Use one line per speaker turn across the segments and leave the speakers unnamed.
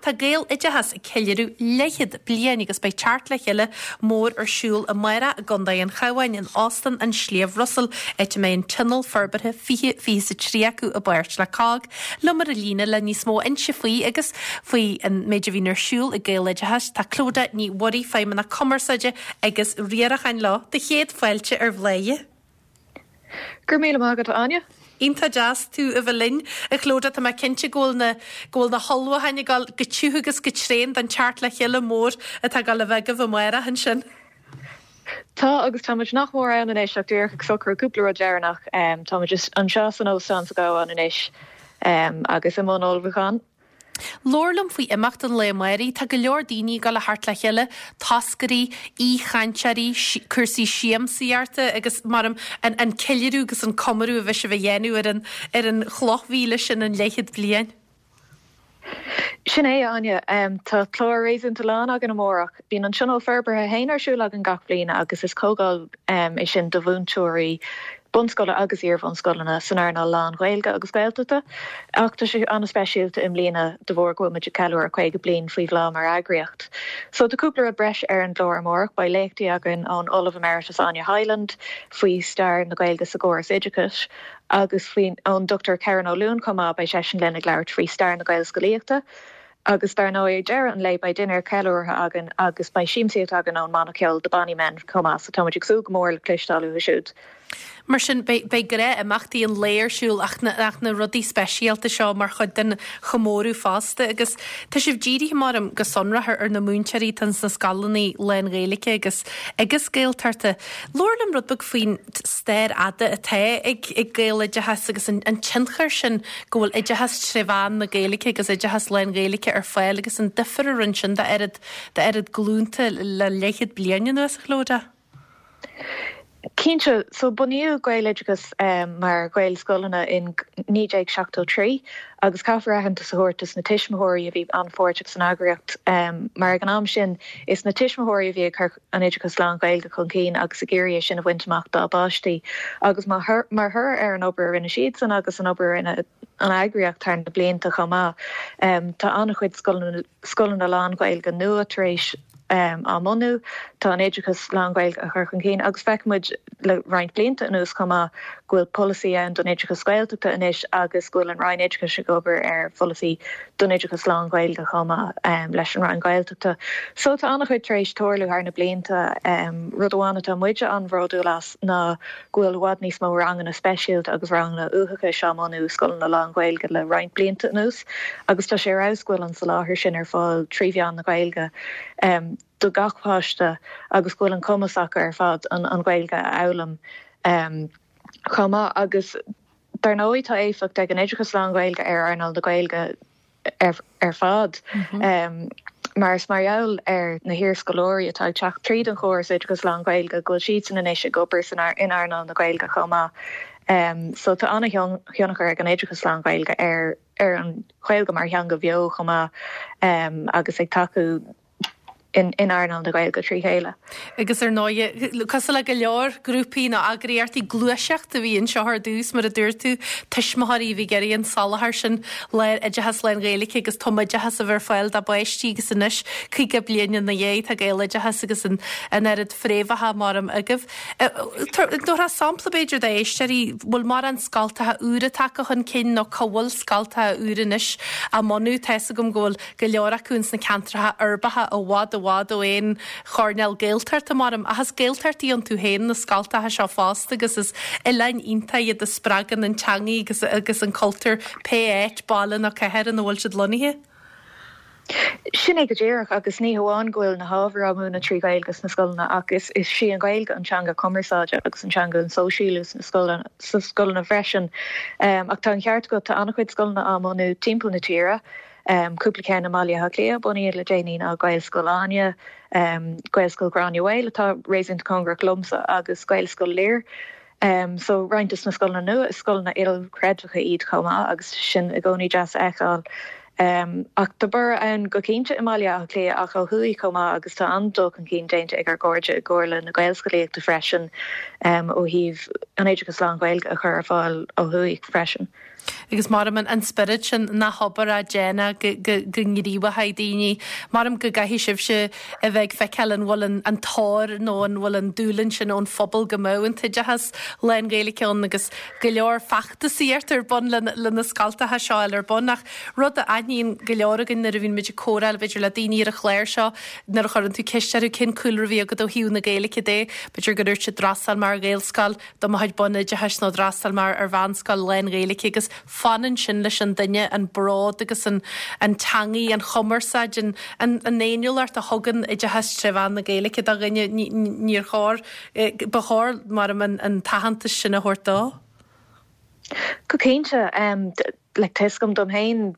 Tá Gaeloideachas ag ceiliúradh leathchéad bliain agus beidh teacht le chéile mór ar siúl amárach i gContae an Chabháin in Óstán an Sliabh Russell, áit a mbeidh an Tionól Forbartha 2023 acu i bpáirt le cogg. Liom ar an líne le níos mó a inse faoi agus faoi an méid a bhíonn ar siúl ag Gaeloideachas tá Clodagh Ní Mhuirí, Feidhmeannach Cumarsáide agus Riaracháin leo. Do chéad fáilte ar Bhláth.
Go raibh míle maith agat, a Áine.
Iontach deas tú a bheith linn, a Chlodagh. Tá mé cinnte go bhfuil na, go bhfuil na hullmhúcháin ag dul go tiubh agus go tréan don teacht le chéile mór atá ag dul a bheith agaibh amárach ansin.
Tá, agus tá muid nach mór ann anois ach díreach ag socrú cúpla rud deireanach. Tá muid anseo san óstán sa gCabhán anois agus i mbun ullmhúcháin.
Labhair liom faoi imeacht an lae amáirigh. Tá go leor daoine ag dul a theacht le chéile, toscairí, aoichainteoirí, cúrsaí siamsaíochta agus mar an an ceiliúradh agus an comóradh a bheidh sibh a dhéanamh ar an ar an chloch mhíle sin, an leathchéad bliain.
Sin é, a Áine. Tá clár réasúnta lán againn amárach. Bíonn an Tionól Forbartha féin ar siúl againn gach bliain agus is comhdháil é sin do mhúinteoirí bunscoile agus iar-bhunscoileanna san earnáil lán-Ghaeilge agus Gaeltachta. Ach tá sé an-speisialta i mbliana de bharr go bhfuil muid ag ceiliúradh 50 bliain faoi bhláth mar eagraíocht. So tá cúpla rud breise ar an gclár amárach. Beidh léachtaí againn ón Ollamh Emeritus Áine Hyland faoi stair na Gaeilge sa gcóras oideachais agus faoin ón Dr Kerron Ó Luain chomh maith, beidh seisean linn ag labhairt faoi stair na Gaelscolaíochta. Agus dar ndóigh ag deireadh an lae beidh dinnéar ceiliúrtha againn agus beidh siamsaíocht againn ón mbanna ceoil The Bonny Men chomh maith, so tá muid ag súil go mór le cloisteáil uathu siúd.
Mar sin, beidh beidh gnáth-imeachtaí an lae ar siúl ach na ach na rudaí speisialta seo mar chuid den chomóradh fosta. Agus tá sibh dírithe, maram, go sonrach ar ar na múinteoirí atá ins na scoileanna lán-Ghaeilge agus agus Gaeltachta. Labhair liom rud beag faoin stair fhada atá ag ag Gaeloideachas agus an an tionchar sin go bhfuil oideachas tré mheán na Gaeilge agus oideachas lán-Ghaeilge ar fáil agus an difear a rinne sin d'oiread d'oiread glúnta le leathchéad bliain anuas, a Chlodagh.
Cinnte, so bunaíodh Gaeloideachas mar Ghaelscoileanna in 1973 agus caithfear aitheantas a thabhairt dos na tuismitheoirí a bhí an-pháirteach san eagraíocht mar ag an am sin is na tuismitheoirí a bhí ag cur an oideachas lán-Ghaeilge chun cinn agus ag iarraidh é sin a bhaint amach dá bpáistí agus mar thoradh ar an obair a rinne siadsan agus an obair a rinne an eagraíocht thar na blianta chomh maith, tá an-chuid scoileanna lán-Ghaeilge nua tar éis á mbunú, tá an oideachas lán-Ghaeilge á chur chun cinn agus feiceann muid le roinnt blianta anuas chomh maith go bhfuil polasaí ann don oideachas Gaeltachta anois agus go bhfuil an Roinn Oideachais ag obair ar pholasaí don oideachas lán-Ghaeilge chomh maith leis an Roinn Gaeltachta. So tá an-chuid tar éis tarlú thar na blianta. Rud amháin atá muide an-bhródúil as ná go bhfuil i bhfad níos mó ranganna speisialta agus ranganna uathachais á mbunú i scoileanna lán-Ghaeilge le roinnt blianta anuas agus tá sé ar fheabhas go bhfuil an soláthar sin ar fáil trí mheán na Gaeilge do gach páiste agus go bhfuil an cumas acu ar fad an Ghaeilge a fhoghlaim chomh maith agus Dar ndóigh, tá éifeacht ag an oideachas lán-Ghaeilge ar earnáil na Gaeilge ar fad, mar is mar gheall ar na hiarscoláirí atá ag teacht tríd an chóras oideachas lán-Ghaeilge go bhfuil siadsan anois ag obair san in earnáil na Gaeilge chomh maith. So tá an-thionchar ag an oideachas lán-Ghaeilge ar ar an Ghaeilge mar theanga bheo chomh maith agus ag tacú in earnáil na Gaeilge trí chéile.
Agus ar ndóigh, cosúil le go leor grúpaí nó eagraíochtaí, gluaiseacht a bhí anseo ar dtús, mar a dúirt tú, tuismitheoirí a bhí ag iarraidh an soláthar sin, oideachas lán-Ghaeilge agus tumoideachas a bheith ar fáil dá bpáistí agus anois, 50 bliain ina dhiaidh, tá Gaeloideachas agus an oiread fréamhacha maram agaibh. Tabharfá sampla b'fhéidir d'éisteoirí, bhfuil mórán scoltacha úra tagtha chun cinn nó cá bhfuil scoltacha úra anois á mbunú? Tá fhios agam go bhfuil go leor acu ins na ceantracha uirbeacha i bhfad i bhfad ó aon choirnéal Gaeltachta, maram, ach is Gaeltachtaí iontu féin na scoltacha seo fosta agus is oileáin iontacha iad a spreagann an teangaidh agus agus an cultúr pé áit, baile nó cathair ina bhfuil siad lonnaithe.
Sin é go díreach, agus ní hamháin go bhfuil na hábhair á múineadh trí Ghaeilge sna scoileanna ach is is í an Ghaeilge an teanga cumarsáide agus an teanga an sóisialú sna scoileanna sna scoileanna freisin. Ach tá an ceart agat, tá an-chuid scoileanna á mbunú timpeall na tíre. Cúpla ceann i mBaile Átha Cliath a bunaíodh le déanaí ná Gaelscoil Áine, Gaelscoil Ghráinne Mhaol atá réasúnta cóngarach liomsa agus Gaelscoil Lir. So roinnt dos na scoileanna nua, is scoileanna ilchreidmheacha iad chomh maith agus sin i gcónaí deas a fheiceáil. Ach tá borradh ann go cinnte i mBaile Átha Cliath ach ó thuaidh chomh maith agus tá an-dul chun cinn déanta ag ár gcairde i gComhairle na Gaelscolaíochta freisin ó thaobh an oideachas lán-Ghaeilge a chur ar fáil ó thuaidh freisin.
Agus maram an spiorad sin nach obair á déanamh go ngníomhóidh daoine. Maram go gcaithfidh sibhse a bheith ag feiceáil an bhfuil an tóir nó an bhfuil an dúil sin ón phobal go mbeadh an t-oideachas lán-Ghaeilge ann agus go leor feachtasaíocht ar bun le na scoltacha seo a fháil ar bun. Ach rud a aithníonn go leor againn nuair a bhíonn muid ag comhrá b'fhéidir le daoine ar an chlár seo, nuair a chuireann tú ceist orthu cén cúlra a bhí agat ó thaobh na Gaeilge de, b'fhéidir go ndúirt siad d'fhreastail mé ar Ghaelscoil, do mo chuid bunoideachais nó d'fhreastail mé ar mheánscoil lán-Ghaeilge agus fanann sin leis an duine, an bród agus an an teangaidh, an chumarsáid, an an an fhéiniúlacht a thugann oideachas tré mheán na Gaeilge do dhuine, níor chóir, ba chóir, maram, an an t-aitheantas sin a thabhairt dó.
Go cinnte. Like tá 'fhios agam dom féin,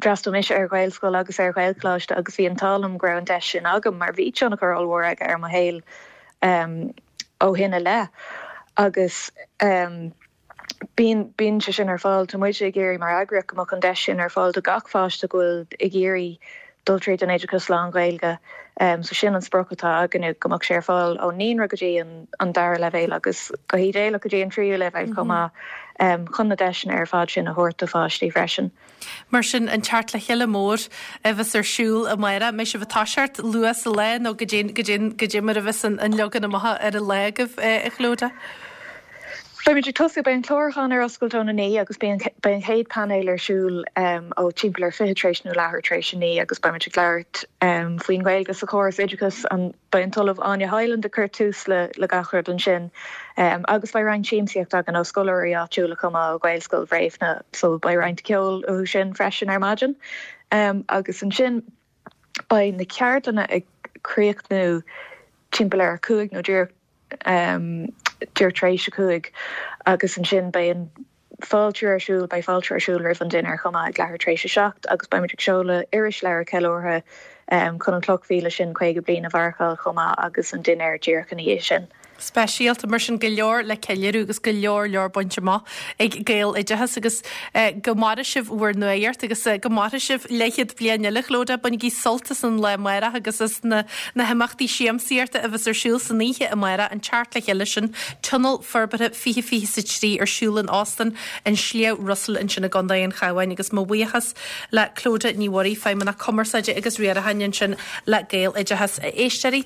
d'fhreastail mise ar Ghaelscoil agus ar Ghaelcholáiste agus bhí an t-ádh liom go raibh an deis sin agam mar bhí tionchar ollmhór aige ar mo shaol ó shin i leith agus bíonn, bíonn sé sin ar fáil. Tá muid ag iarraidh mar eagraíocht go mbeadh an deis sin ar fáil do gach pháiste go bhfuil ag iarraidh dul tríd an oideachas lán-Ghaeilge. So sin an sprioc atá againne, go mbeadh sé ar fáil ón naíonra go dtí an dara leibhéal agus go hídéalach go dtí an tríú leibhéal chomh maith, chun na deiseanna ar fad sin a thabhairt do pháistí freisin.
Mar sin, an teacht le chéile mór a bheas ar siúl amárach, an mbeidh sibh ag toiseacht luath sa lá nó goidé mar a bheas an leagan amach ar an lá agaibh, a Chlodagh?
Beimid ag tosú, beidh an clárúchán ar oscailt óna 9 agus beidh an chéad painéal ar siúl ó timpeall ar 20 tar éis nó leathuair tar éis a 9 agus beimid ag labhairt faoin Ghaeilge sa chóras oideachais. Beidh an tOllamh Áine Hyland ag cur tús le gach rud ansin agus beidh roinnt siamsaíocht againn ó scoláirí áitiúla chomh maith ó Ghaelscoil Bhréifne so beidh roinnt ceoil uathu sin freisin ar maidin agus ansin beidh na ceardlanna ag críochnú timpeall ar a 5 nó díreach díreach tar éis a 5 agus ansin beidh an fáiltiú ar siúl, beidh fáiltiú ar siúl roimh an dinnéar chomh maith ag leathuair tar éis a 7 agus beimid ag seoladh irisleabhar ceiliúrtha chun an chloch mhíle sin 50 bliain a mharcáil chomh maith agus an dinnéar díreach ina dhiaidh sin.
Speisialta, mar sin go leor le ceiliúradh agus go leor leor bainte amach ag Gaeloideachas agus go maire sibh bhur nuaíocht agus go maire sibh leathchéad bliain eile, Clodagh. Bainigí sult as an lá amárach agus as na na himeachtaí siamsaíochta a bheas ar siúl san oíche amárach, an teacht le chéile sin, Tionól Forbartha 2023 ar siúl in Óstán an Sliabh Russell ansin i gContae an Chabháin agus mo bhuíochas le Clodagh Ní Mhuirí, Feidhmeannach Cumarsáide agus Riaracháin ansin le Gaeloideachas. A éisteoirí.